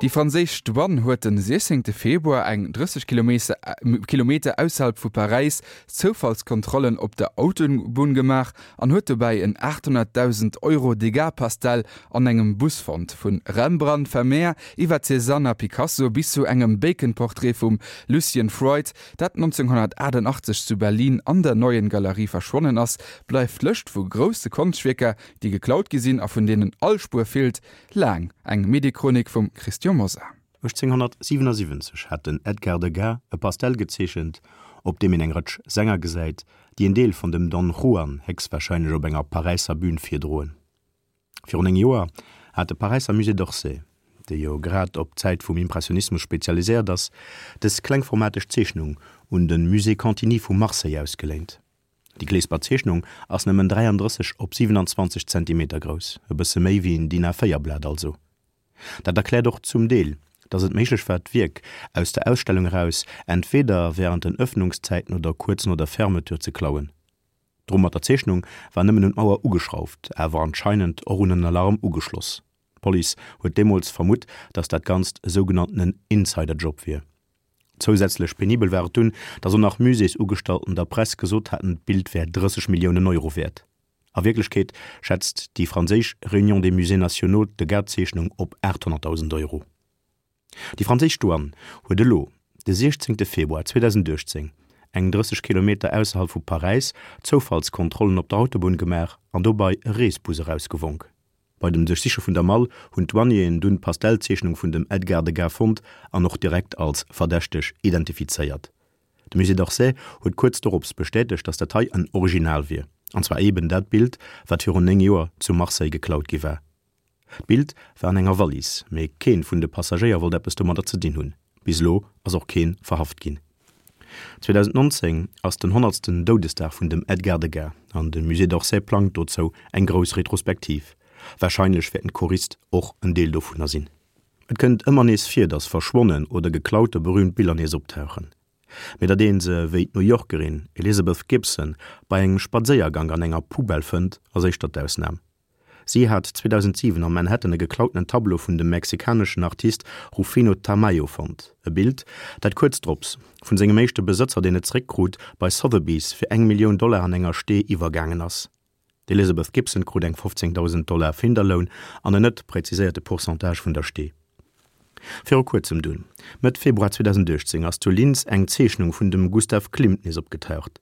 Déi franséisch Douane huet den 16 Februar eng 30 Kilometer ausserhalb vu Paräis Zoufallskontrollen op der Autobunn gemaach an huet dobäi en 800.000 Euro Degas-Pastell an engem Bus fonnt. Vu Rembrandt, Vermeer iwwer Cézanne a Picasso bis zu engem Bacon-Portrait vum Lucian Freud, dat 1988 zu Berlin an der Neuen Galerie verschwonnen ass, bleift d'Lëscht vu grousse Konschtwierker, déi geklaut gi sinn a vun deenen all Spuer feelt, Laang. Eng Mediechronik vum Christian Mosar. 1877 hat den Edgar Degas e Pastell gezeechent, op deem een eng Rëtsch Sänger gesäit, déi en Deel vun dem Don Juan héchstwarscheinlech op enger Paräisser Bün virdroen. Virun 9 Joer hat de Paräisser Musée d'Orsay, dee jo grad op d'Zäit vum Impressionismus spezialiséiert ass, dës klengformateg Zeechnung un de Musée Cantini vu Marseille ausgeléint. Déi Kleesper Zeechnung ass nëmmen 33 op 27 Zentimeter grouss, e bësse méi wéi en DIN A4 Blat also. Dat erkläert och zum Deel, datt et méiglech war d'Wierk aus der Ausstellung eraus, entweder wärend den Ëffnungszäiten oder kuerz no der Fermeture ze klauen. D'Rumm mat der Zeechnung war nëmmen un d'Mauer ugeschrauft, awer anscheinend och un en Alarm ugeschloss. D'Police huet deemools vermutt, datt dat Ganzt e sougenanntenen Insider-Job wier. Zousätzlech penibel war et dunn, datt och nach Muséesugestallten der Press gesot haten, d'Bild wär 30 Milliounen Euro wäert. A Wierklechkeet schätzt déi franséisch Réunion des Musées nationaux d'Degas-Zeechnung op 800.000 Euro. Déi franséisch Douane huet elo, de 16 Februar 2018, eng 30 Kilometer ausserhalb vu Paräis, Zoufallskontrollen op der Autobunn gemaach an dobei e Reesbus erausgewonk. Bei dem Duerchsiche vun der Mall hunn d'Douanieren dunn d'Pastellzeechnung vun dem Edgar Degas fonnt an och direkt als verdächteg identifizéiert. De Musée d'Orsay huet kuerz dorops bestätegt, datt dat hei en Original wier, an zwar eben dat Bild, wat virun 9 Joer zu Marseille geklaut gi war. D'Bild war an enger Wallis, mee keen vun de Passagéier wollt eppes domadder ze dinn hunn. Bis elo ass och keen verhaft ginn. 2019 ass den honnertsten Doudesdag vun dem Edgar Degas an de Musée d'Orsay plangt dozou eng grouss Retrospektiv. Warscheinlech wäerten d'Choriste och en Deel dovunner sinn. Et kënnt ëmmer nees vir, datt verschwonnen oder geklaute berüümt Biller nees optauchen. Mee datt ee se, wéi d'New Yorkerin Elizabeth Gibson, bei engem Spadséiergank an enger Poubelle fënnt, ass éischter d'Ausnam. Si hat 2007 am Manhattan e geklautenen Tableau vun dem mexikaneschen Artist Rufino Tamayo fonnt, e Bild, dat kuerz drops vun sengem éischte Besëtzer, deen et zeréckkrut, bei Sotheby's fir eng Millioun Dollar an enger Stee iwwergaangen ass. D'Elizabeth Gibson krut eng 15.000 Dollar Finderloun an en net präziséierte Pourcentage vun der Stee. Viru kuerzem dunn, Mëtt Februar 2018, ass zu Linz eng Zeechnung vun dem Gustav Klimt nees opgetaucht.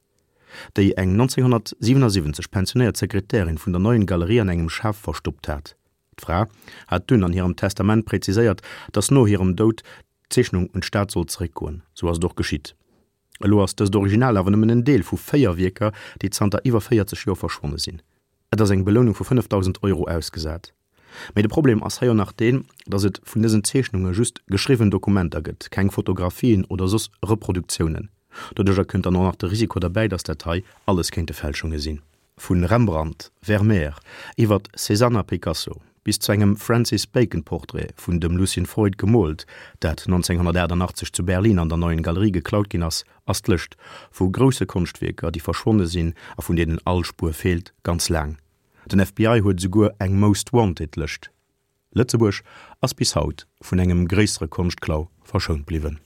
déi eng 1977 pensionéiert Sekretärin vun der Neuen Galerie an engem Schaf verstoppt hat. D'Fra hat dunn an hirem Testament präziséiert, datt no hirem Doud d'Zeechnung un d'Stad sollt zeréckgoen. Sou ass et och geschitt. Elo ass dëst Original awer nëmmen en Deel vu 4 Wierker, déi zanter iwwer 40 Joer verschwonne sinn. Et ass eng Belounung vu 5.000 Euro ausgesat. Mee de Problem ass hei och nach deen, datt et vun dësen Zeechnunge just geschriwwen Dokumenter gëtt, keng Fotografien oder soss Reproduktiounen. Doduercher kënnt dann och nach de Risiko derbäi, datt dat hei alles kéinte Fälschunge sinn. Vu Rembrandt, Vermeer, iwwert Cézanne a Picasso bis zu engem Francis Bacon Portrait vun dem Lucien Freud gemoolt, dat 1988 zu Berlin an der Neuen Galerie geklaut ginn ass, ass d'Lëscht vu grousse Konschtwierker, déi verschwonne sinn a vun deenen all Spuer feelt, ganz laang. Den FBI huet esouguer eng Most Wanted Lëscht. Lëtzebuerg ass bis haut vun engem gréissere Konschtklau verschount bliwwen.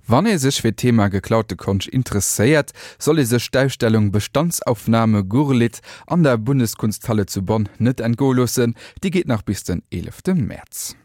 Wann ee sech fir d'Thema geklaute Konscht interesséiert, soll ee sech d'Ausstellung Bestandsaufnahme Gurlitt an der Bundeskunsthalle zu Bonn net entgoe loossen. Déi geet nach bis den 11 Mäerz.